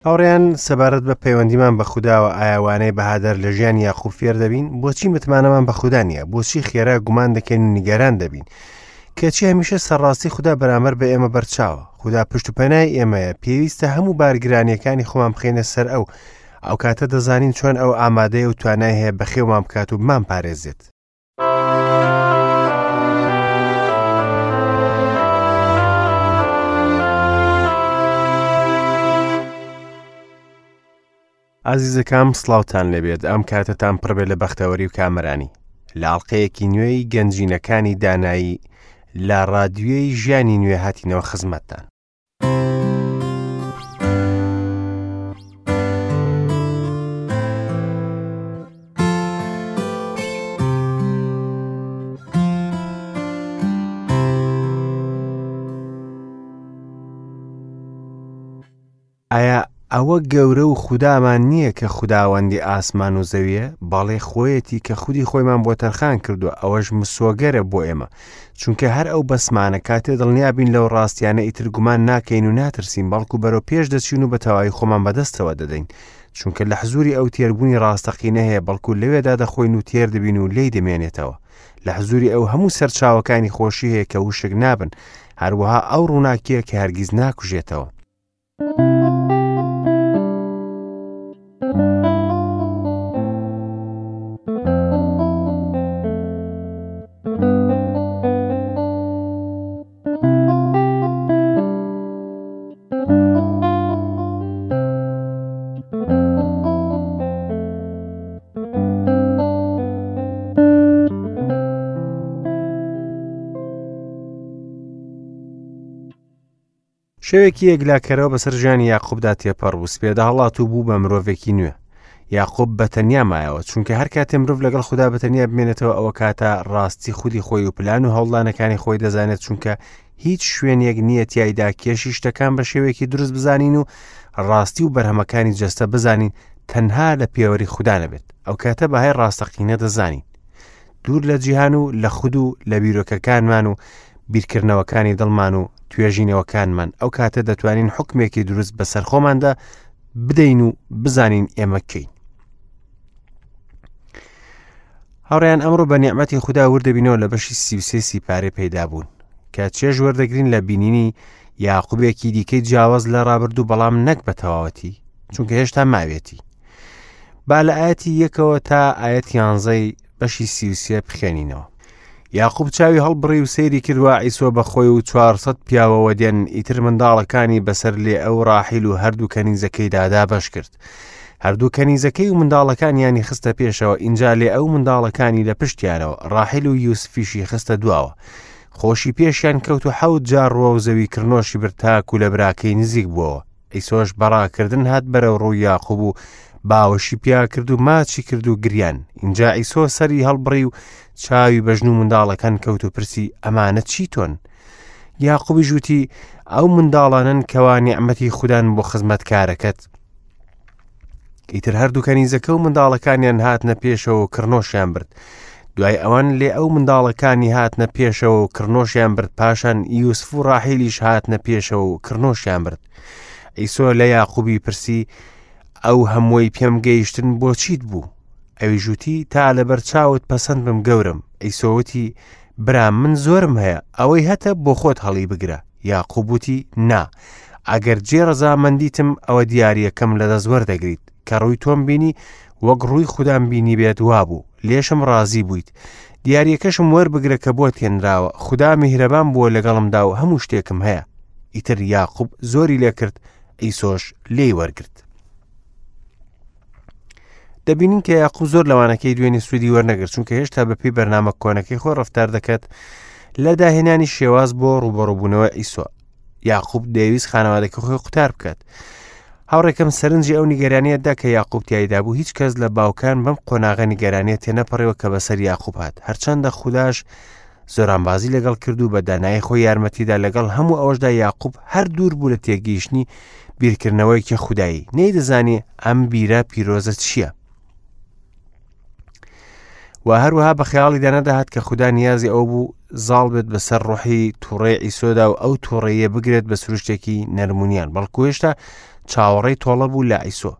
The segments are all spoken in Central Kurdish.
هاوڕێیان سەبارەت بە پەیوەندیمان بە خوداوە ئایا وانەی بەهادار لە ژیانی یاقوب فێر دەبین؟ بۆچی متمانەمان بە خودا نییە؟ بۆچی خێرا گومان دەکەین و نیگەران دەبین؟ کەچی هەمیشە سەرڕاستی خودا بەرامبەر بە ئێمە بەرچاوە. خودا پشت و پەنای ئێمەیە، پێویستە هەموو بارگرانیەکانی خۆمان بخەینە سەر ئەو. ئەو کاتە دەزانین چۆن ئەو ئامادەیە و توانای هەیە بەخێومان بکات و بمانپارێزێت. ئازیزەکام سڵاوتان لێبێت ئەم کاتەتان پڕبێ لە بەختەوەری و کامەرانی لە ئاڵلقەیەکی نوێی گەنجینەکانی دانایی لە ڕادیۆی ژیانی نوێ هاتینەوە خزمەتتان. ئایا ئەوە گەورە و خودامان نییە کە خوداوەندی ئاسمان و زەویە؟ بەڵێ خۆیەتی کە خودی خۆیمان بۆ تەرخان کردووە، ئەوەش مسۆگەرە بۆ ئێمە، چونکە هەر ئەو بەسمانە کاتێ دڵنیا بین لەو ڕاستیانە ئیتر گومان ناکەین و ناترسین، بەڵکو بەرەو پێش دەچین و بە تەواوی خۆمان بەدەستەوە دەدەین، چونکە لە حزوری ئەو تێربوونی ڕاستەقینە هەیە، بەڵکو لەوێدا دەخۆین و تێر دەبین و لێی دەمێنێتەوە. لە حزوری ئەو هەموو سەرچاوەکانی خۆشی هەیە کە وشک نابن، هەروەها ئەو ڕووناکییە کە هەرگیز ناکوژێتەوە. شەوێکی یەکلاکەرەوە بەسەر ژیانی یاقوبدا تێپەڕ بوو، سپێدە هەڵات و بوو بە مرۆڤێکی نوێ. یاقوب بە تەنیا مایەوە، چونکە هەر کاتێ مرۆڤ لەگەڵ خودا بە تەنیا بمێنێتەوە ئەوە کاتە ڕاستی خودی خۆی و پلان و هەوڵدانەکانی خۆی دەزانێت، چونکە هیچ شوێنێک نییە تیایدا کێشی شتەکان بە شێوەیەکی دروست بزانین و ڕاستی و بەرهەمەکانی جەستە بزانین تەنها لە پێوەری خودا نەبێت. ئەو کاتە بەهای ڕاستەقینە دەزانین. دوور لە جیهان و لە خود و لە بیرۆکەکانمان و بیرکردنەوەکانی دڵمان و توێژینەوەکانمان ئەو کاتە دەتوانین حکمێکی دروست بەسەر خۆماندا بدەین و بزانین ئێمە کەین. هاوڕیان ئەمڕۆ بە نیعمەتی خودا وردەبینەوە لە بەشی 33 سیپارەی پەیدا بوون کە چێژ وەردەگرین لە بینینی یاقوبێکی دیکەی جیاواز لە ڕابردوو بەڵام نەک بە تەواوەتی چونکە هێشتا ماوێتی با لە ئاەتی یەکەوە تا ئاەت یانزەی بەشی 33 بخوێنینەوە. یاقوب چاوی هەڵبڕی و سەیری کرد وا عیسۆ بە خۆی و 400 پیاوەوە دێن، ئیتر منداڵەکانی بەسەر لێئە و ڕاحیل و هەردوو کەنیزەکەیدا دابەش کرد. هەردوو کەنیزەکەی و منداڵەکانیانی خستە پێشەوە، ئینجا لێئە و منداڵەکانی لە پشتیانەوە، ڕاحیل و یوسفیشی خستە دواوە. خۆشی پێشیان کەوت و حەوت جار ڕووەو زەوی کڕنۆشی برد تاکو لە براکەی نزیک بووەوە. عیسۆش بە ڕاکردن هات بەرەو ڕووی یاقوب و باوەشی پیا کرد و ماچی کرد و گریان. ئینجا عیسۆ سەری هەڵبڕی و چاوی بە ژن و منداڵەکان کەوت و پرسی ئەمانە چی تۆن؟ یاقوبیش وتی ئەو منداڵانەن کەوا نیعمەتی خودان بۆ خزمەتکارەکەت. ئیتر هەردوو کەنیزەکە و منداڵەکانیان هاتنە پێشەوە و کڕنۆشیان برد. دوای ئەوان لێ ئەو منداڵەکانی هاتنە پێشەوە و کڕنۆشیان برد، پاشان یوسف و ڕاحیلیش هاتنە پێشەوە و کڕنۆشیان برد. عیسۆ لە یاقوبی پرسی ئەو هەمووی پێم گەیشتن بۆ چیت بوو؟ ئەویش وتی تا لەبەر چاوت پەسەند بم گەورەم. عیسۆ وتی برام من زۆرم هەیە، ئەوەی هەتە بۆ خۆت هەڵی بگرە. یاقوب وتی نا، ئەگەر جێ ڕەزامەندیتم ئەوە دیارییەکەم لەدەست وەردەگریت. کە ڕووی تۆم بینی وەک ڕووی خودام بینی بێت وابوو، لێشم ڕازی بوویت. دیارییەکەشم وەربگرە کە بۆت هێنراوە، خودا میهرەبان بووە لەگەڵمدا و هەموو شتێکم هەیە. ئیتر یاقوب زۆری لێکرد، عیسۆش لێی وەرگرت. دەبینین کە یاقوب زۆر لەوانەکەی دوێنێ سوودی وەرنەگرت، چونکە هێشتا بەپێی بەرنامە کۆنەکەی خۆی ڕەفتار دەکات لە داهێنانی شێواز بۆ ڕووبەڕووبوونەوە عیسۆ. یاقوب دەیەویست خانەوادەکە خۆی قوتار بکات. هاوڕێکەم سەرنجی ئەو نیگەرانیە دا کە یاقوب تیایدا بوو، هیچ کەس لە باوکان بەم قۆناغە نیگەرانیە تێنەپەڕیوە کە بەسەر یاقوب هات، هەرچەندە خوداش زۆرانبازی لەگەڵ کرد و بە دانایی خۆی یارمەتیدا، لەگەڵ هەموو ئەوەشدا یاقوب هەر دوور بوو لە تێگەیشتنی بیرکردنەوەیەکی خودایی، نەیدەزانی ئەم بیرە پیرۆزە چییە. و هەروەها بە خەیاڵیدا نەدەهات کە خودا نیازی ئەو بوو زاڵ بێت بەسەر ڕۆحی تووڕەی عیسۆدا و ئەو تووڕەیە بگرێت بە سروشتێکی نەرمونیان، بەڵکو هێشتا چاوەڕێی تۆڵە بوو لە عیسۆ.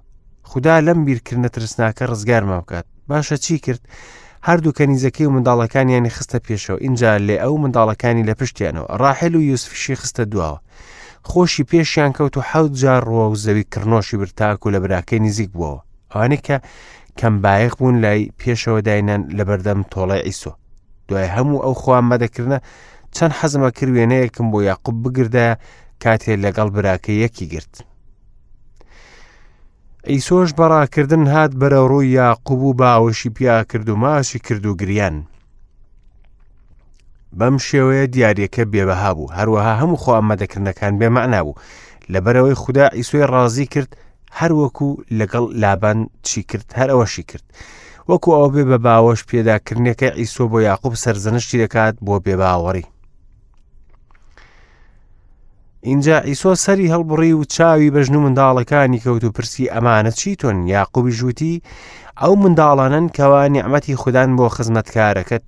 خودا لەم بیرکردنە ترسناکە ڕزگارمان بکات. باشە چی کرد؟ هەردوو کەنیزەکەی و منداڵەکانیانی خستە پێشەوە، ئینجا لێئە و منداڵەکانی لە پشتیانەوە، ڕاحێل و یوسفیشی خستە دواوە. خۆشی پێشیان کەوت و حەوت جار ڕووە و زەوی کڕنۆشی برد تاکو لە براکەی نزیک بووەوە. ئەوانەی کە کەم بایەخ بوون لای پێشەوە داینان لەبەردەم تۆڵەی عیسۆ. دوای هەموو ئەو خۆئامادەکردنە چەند حەزم ئەکرد وێنەیەکم بۆ یاقوب بگردایە کاتێ لەگەڵ براکەی یەکی گرت. عیسۆش بە ڕاکردن هات بەرەو ڕووی یاقوب و باوەشی پیا کرد و ماچی کرد و گریان. بەم شێوەیە دیاریەکە بێبەها بوو، هەروەها هەموو خۆ ئامادەکردنەکان بێمەعنا بوو. لەبەرئەوەی خودا عیسۆی ڕازی کرد هەروەکو لەگەڵ لابان چی کرد هەر ئەوەشی کرد. وەکو ئەوە بێ بە باوەش پێداکردنەکە عیسۆ بۆ یاقوب سەرزەنشتی دەکات بۆ بێباوەڕی. ئینجا عیسۆ سەری هەڵبڕی و چاوی بە ژن و منداڵەکانی کەوت و پرسی ئەمانە چی تۆن؟ یاقوبیش وتی ئەو منداڵانەن کەوا نیعمەتی خودان بۆ خزمەتکارەکەت.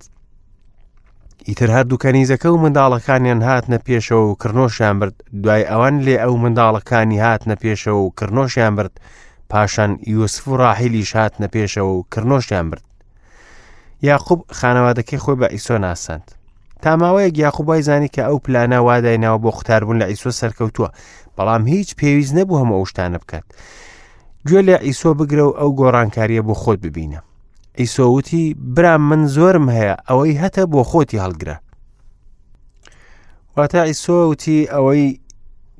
ئیتر هەردوو کەنیزەکە و منداڵەکانیان هاتنە پێشەوە و کڕنۆشیان برد، دوای ئەوان لێ ئەو منداڵەکانی هاتنە پێشەوە و کڕنۆشیان برد، پاشان یوسف و ڕاحیلیش هاتنە پێشەوە و کڕنۆشیان برد. یاقوب خانەوادەکەی خۆی بە عیسۆ ناساند. تا ماوەیەک یاقوب وای زانی کە ئەو پلانە وا دایناوە بۆ قوتاربوون لە عیسۆ سەرکەوتووە، بەڵام هیچ پێویست نەبوو هەموو ئەو شتانە بکات. گوێ لە عیسۆ بگرە و ئەو گۆڕانکارییە بۆ خۆت ببینە. عیسۆ وتی، برام من زۆرم هەیە، ئەوەی هەتە بۆ خۆتی هەڵگرە. واتە عیسۆ وتی ئەوەی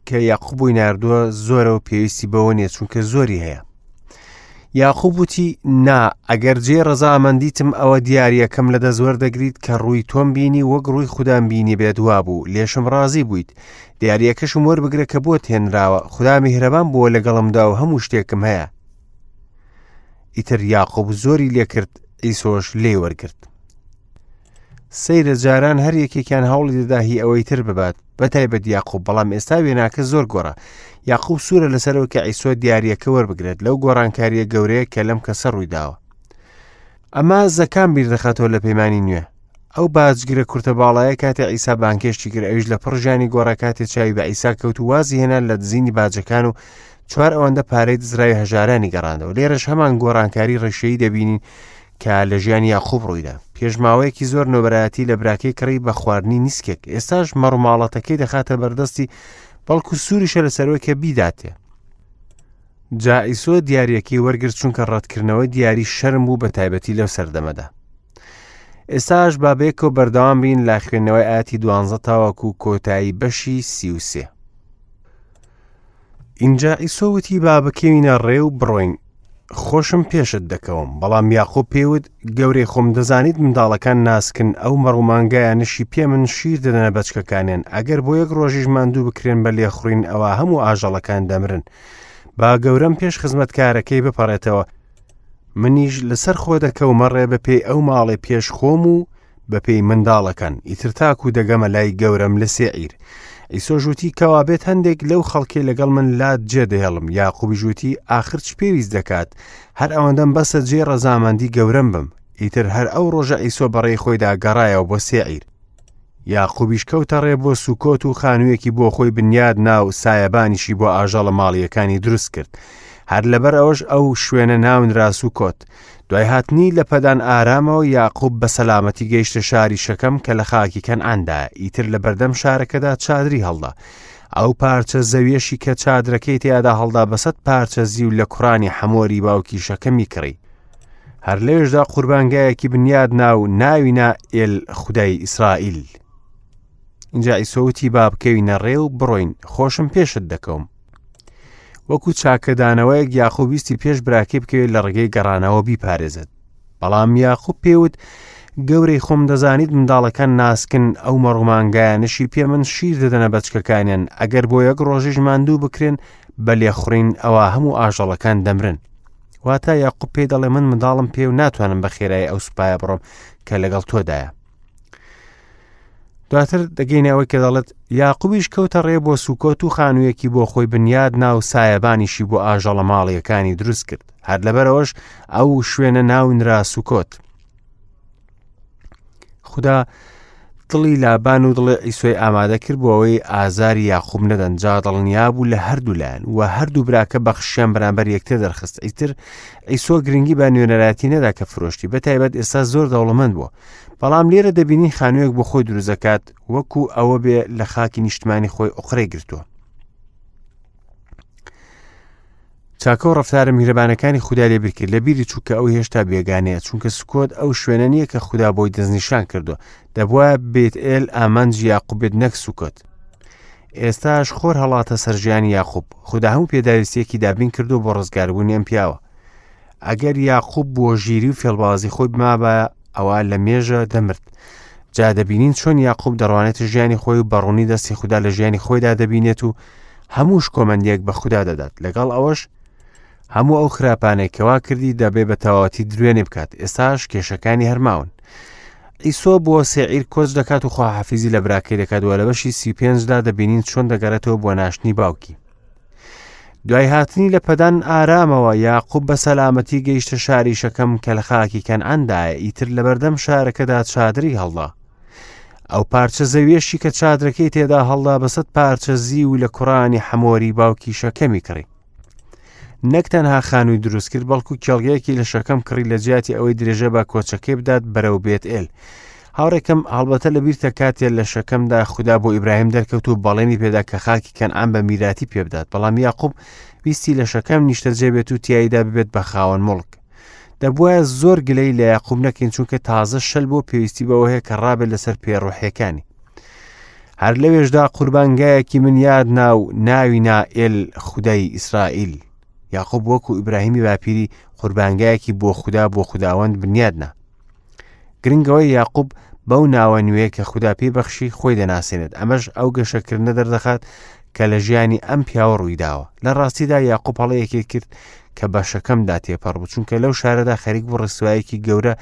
کە یاقوب بۆی ناردووە زۆرە و پێویستی بەوە نییە چونکە زۆری هەیە. یاقوب وتی، نا، ئەگەر جێی ڕەزامەندیتم ئەوە دیارییەکەم لە دەست وەردەگریت کە ڕووی تۆم بینی وەک ڕووی خودام بینیبێت وابوو، لێشم ڕازی بوویت. دیارییەکەشم وەربگرە کە بۆت هێنراوە، خودا میهرەبان بووە لەگەڵمدا و هەموو شتێکم هەیە. ئیتر یاقوب زۆری لێکرد، عیسۆش لێی وەرگرت. سەیرە جاران هەر یەکێکیان هەوڵی دەدا هی ئەوەی تر ببات، بەتایبەت یاقوب، بەڵام ئێستا وێناکە زۆر گۆڕا. یاقوب سوورە لەسەرەوە کە عیسۆ دیارییەکە وەربگرێت لەو گۆڕانکارییە گەورەیە کە لەم کەسە ڕوویداوە. ئەمە زەکام بیردەخاتەوە لە پەیمانی نوێ. ئەو باجگرە کورتە باڵایە کاتێ عیسا بانگهێشتی کرد ئەویش لە پڕ ژیانی گۆڕا کاتێ چاوی بە عیسا کەوت و وازی هێنا لە دزینی باجەکان و چوار ئەوەندە پارەی دزراوی هەژارانی گەڕاندەوە. لێرەش هەمان گۆڕانکاری ڕیشەیی دەبینین کە لە ژیانی یاقوب ڕوویدا. پێش ماوەیەکی زۆر نۆبەرایەتی لە براکەی کڕی بە خواردنی نیسکێک. ئێستاش مەڕوماڵەتەکەی دەخاتە بەردەستی بەڵکو سووریشە لەسەرەوەی کە بیداتێ. جا ئیسۆ دیاریەکەی وەرگرت چونکە ڕەتکردنەوەی دیاری شەرم بوو بە تایبەتی لەو سەردەمەدا. ئێستاش با بەیەکەوە بەردەوام بین لە خوێندنەوەی ئاەتی دوانزە تاوەکو کۆتایی بەشی 33. ئینجا عیسۆ وتی با بکەوینە ڕێ و بڕۆین خۆشم پێشت دەکەوم بەڵام یاقوب پێی وت گەورەی خۆم دەزانیت منداڵەکان ناسکن ئەو مەڕ و مانگایانەشی پێ من شیر دەدەنە بەچکەکانیان ئەگەر بۆ یەک ڕۆژیش ماندوو بکرێن بە لێخوڕین ئەوا هەموو ئاژەڵەکان دەمرن با گەورەم پێش خزمەتکارەکەی بپەڕێتەوە منیش لەسەر خۆ دەکەومە ڕێ بەپێی ئەو ماڵێ پێش خۆم و بەپێی منداڵەکان، ئیتر تاکو دەگەمە لای گەورەم لە سێعیر. عیسۆش وتی، کەوابێت هەندێک لەو خەڵکەی لەگەڵ من لات جێدەهێڵم. یاقوبیش وتی، ئاخر چ پێویست دەکات؟ هەر ئەوەندەم بەسە جێی ڕەزامەندی گەورەم بم. ئیتر هەر ئەو ڕۆژە عیسۆ بەڕێی خۆیدا گەڕایەوە بۆ سێعیر. یاقوبیش کەوتە ڕێ بۆ سوکۆت و خانوویەکی بۆ خۆی بنیاد نا و سایەبانیشی بۆ ئاژەڵە ماڵییەکانی دروست کرد. هەر لەبەر ئەوەش ئەو شوێنە ناونرا سوکۆت. دوای هاتنی لە پەدان ئارامەوە یاقوب بە سەلامەتی گەیشتە شاری شەکەم کە لە خاکی کەنعاندایە، ئیتر لە بەردەم شارەکەدا چادری هەڵدا. ئەو پارچە زەویەشی کە چادرەکەی تیادا هەڵدا بە سەد پارچە زیو لە کوڕانی حەمۆری باوکی شەکەمی کڕی. هەر لەوێشدا قوربانگایەکی بنیاد نا و ناوی نا ئێل خودای ئیسرائیل. ئینجا عیسۆ وتی با بکەوینە ڕێ و بڕۆین، خۆشم پێشت دەکەوم. وەکو چاکەدانەوەیەک یاقوب ویستی پێش براکەی بکەوێت لە ڕێگەی گەڕانەوە بیپارێزێت بەڵام یاقوب پێوت گەورەی خۆم دەزانیت منداڵەکان ناسکن ئەو مەڕومانگایانشی پێ من شیر دەدەنە بەچکەکانیان ئەگەر بۆ یەک ڕۆژیش ماندوو بکرێن بە لێخوڕین ئەوە هەموو ئاژەڵەکان دەمرن واتە یاقوب پێی دەڵێ من منداڵم پێ و ناتوانم بە خێرایی ئەو سوپایە بڕۆم کە لەگەڵ تۆدایە دواتر دەگەینە ئەوەی کە دەڵێت یاقوبیش کەوتە ڕێ بۆ سوکۆت و خانوویەکی بۆ خۆی بنیاد نا و سایەبانیشی بۆ ئاژەڵە ماڵیەکانی دروست کرد هەر لەبەرەوەش ئەو شوێنە ناونرا سوکۆت خدا دڵی لابان و دڵی عیسۆی ئامادە کرد بۆ ئەوەی ئازاری یاقوب نەدەن، جا دڵنیا بوو لە هەردوو لایەن و هەردوو براکە بەخششیان بەرامبەر یەکتر دەرخست. ئیتر عیسۆ گرنگی بە نوێنەرایەتی نەدا کە فرۆشتی، بە تایبەت ئێستا زۆر دەوڵەمەند بووە. بەڵام لێرە دەبینین خانوویەک بۆ خۆی دروست دەکات وەکو ئەوە بێ لە خاکی نیشتمانی خۆی ئۆقرەی گرتووە. چاکە و ڕەفتارە میهرەبانەکانی خودای لەبیر کرد، لەبیری چوو کە ئەو هێشتا بێگانەیە، چونکە سوکۆت ئەو شوێنە نییە کە خودا بۆی دەستنیشان کردووە. دەبوایە بێتئێل ئامانجی یاقوب بێت نەک سوکۆت. ئێستاش خۆر هەڵاتە سەر ژیانی یاقوب. خودا هەموو پێداویستییەکی دابین کردووە بۆ ڕزگاربوونی ئەم پیاوە. ئەگەر یاقوب بۆ ژیری و فێڵبازی خۆی بمابایە ئەوا لە مێژە دەمرد. جا دەبینین چۆن یاقوب دەڕوانێتە ژیانی خۆی و بەڕوونی دەستی خودا لە ژیانی خۆیدا دەبینێت و هەموو شکۆمەندیەک بە خودا دەدات لەگەڵ ئەوەش هەموو ئەو خراپانەی کەوا کردی دەبێ بە تەواوەتی دروێنێ بکات ئێستاش کێشەکانی هەرماون ئیسۆ بۆ سێعیر کۆچ دەکات و خواحافیزی لە براکەی دەکات و لە بەشی 35دا دەبینین چۆن دەگەڕێتەوە بۆ ناشتنی باوکی دوای هاتنی لە پەدان ئارامەوە یاقوب بە سەلامەتی گەیشتە شاری شەکەم کە لە خاکی کەنعاندایە ئیتر لەبەردەم شارەکەدا چادری هەڵدا ئەو پارچە زەویەشی کە چادرەکەی تێدا هەڵدا بەسەد پارچە زیو لە کوڕانی حەمۆری باوکی شەکەمی کڕی نەک تەنها خانووی دروست کرد بەڵکو کێڵگەیەکی لە شەکەم کڕی لە جیاتی ئەوەی درێژە بە کۆچەکەی بدات بەرەو بێت ئێل هاوڕێکەم هەڵبەتە لە بیرتە کاتێ لە شەکەمدا خودا بۆ ئیبراهیم دەرکەوت و بەڵێنی پێدا کە خاکی کەنعان بە میراتی پێبدات بەڵام یاقوب ویستی لە شەکەم نیشتەجێ بێت و تیایدا ببێت بە خاوەن موڵک دەبوایە زۆر گلەی لە یاقوب نەکەین چونکە تازە شەل بۆ پێویستی بەوە هەیە کە ڕابێت لەسەر پێ ڕۆحیەکانی هەر لەوێشدا قوربانگایەکی من یاد نا و ناوی نا ئێل خودای ئیسرائیل یاقوب وەکو ئیبراهیمی باپیری قوربانگایەکی بۆ خودا بۆ خوداوەند بنیاد نا گرنگەوەی یاقوب بەو ناوە نوێ کە خودا پێی بەخشی خۆی دەناسێنێت ئەمەش ئەو گەشەکردنە دەردەخات کە لە ژیانی ئەم پیاوە ڕوویداوە لە ڕاستیدا یاقوب هەڵەیەکی کرد کە بە شەکەمدا تێپەڕ بوو چونکە لەو شارەدا خەریک بوو ڕسوایەکی گەورە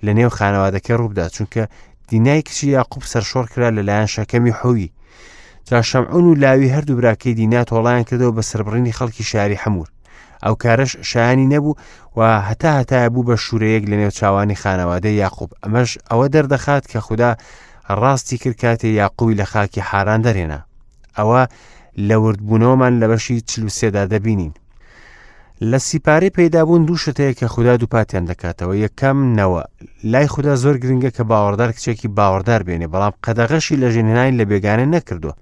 لە نێو خانەوادەکەی ڕووبدا چونکە دینای کچی یاقوب سەرشۆڕ کرا لەلایەن شەکەمی حوی جا شەمعون و لاوی هەردوو براکەی دینا تۆڵیان کردەوە بە سەربڕینی خەڵکی شاری حەمور ئەو کارەش شایانی نەبوو و هەتا هەتایە بوو بە شوورەیەک لە نێو چاوانی خانەوادەی یاقوب ئەمەش ئەوە دەردەخات کە خودا ڕاستی کرد کاتێ یاقوبی لە خاکی حاران دەرێنا ئەوە لە وردبوونەوەمان لە بەشی چلوسێدا دەبینین لە سیپارەی پەیدابوون دوو شت هەیە کە خودا دووپاتیان دەکاتەوە یەکەم نەوە لای خودا زۆر گرنگە کە باوەڕدار کچێکی باوەڕدار بێنێ بەڵام قەدەغەشی لە ژنهێنانی لە بێگانە نەکردووە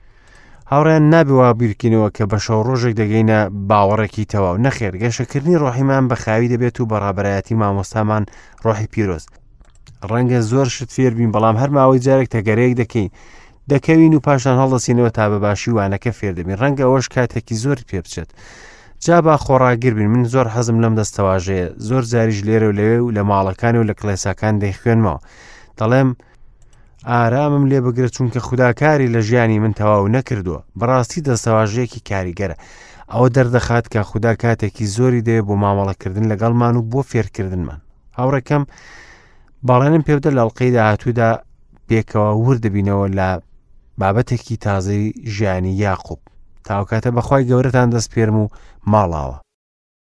هاوڕێیان نابێ وا بیرکەینەوە کە بە شەو ڕۆژێک دەگەینە باوەڕێکی تەواو نەخێر گەشەکردنی ڕۆحیمان بە خاوی دەبێت و بە ڕابەرایەتی مامۆستامان ڕۆحی پیرۆز ڕەنگە زۆر شت فێر بین بەڵام هەر ماوەی جارێک تەگەرەیەک دەکەین دەکەوین و پاشان هەڵدەسینەوە تا بە باشی وانەکە فێر دەبین ڕەنگە ئەوەش کاتێکی زۆر پێ بچێت جا با خۆڕاگر بین من زۆر حەزم لەم دەستەواژەیە زۆر جاریش لێرە و لەوێ و لە ماڵەکان و لە کڵێساکان دەیخوێنمەوە دەڵێم ئارامم لێ بگرە چونکە خوداکاری لە ژیانی من تەواو نەکردووە بەڕاستی دەستەواژەیەکی کاریگەرە ئەوە دەردەخات کە خودا کاتێکی زۆری دەوێت بۆ مامەڵەکردن لەگەڵمان و بۆ فێرکردنمان هاوڕێکەم بەڵێنم پێبدە لە ئەڵقەی داهاتوودا پێکەوە ورد دەبینەوە لە بابەتێکی تازەی ژیانی یاقوب تاوکاتە بەخوای گەورەتان دەستپێرم و ماڵاوە.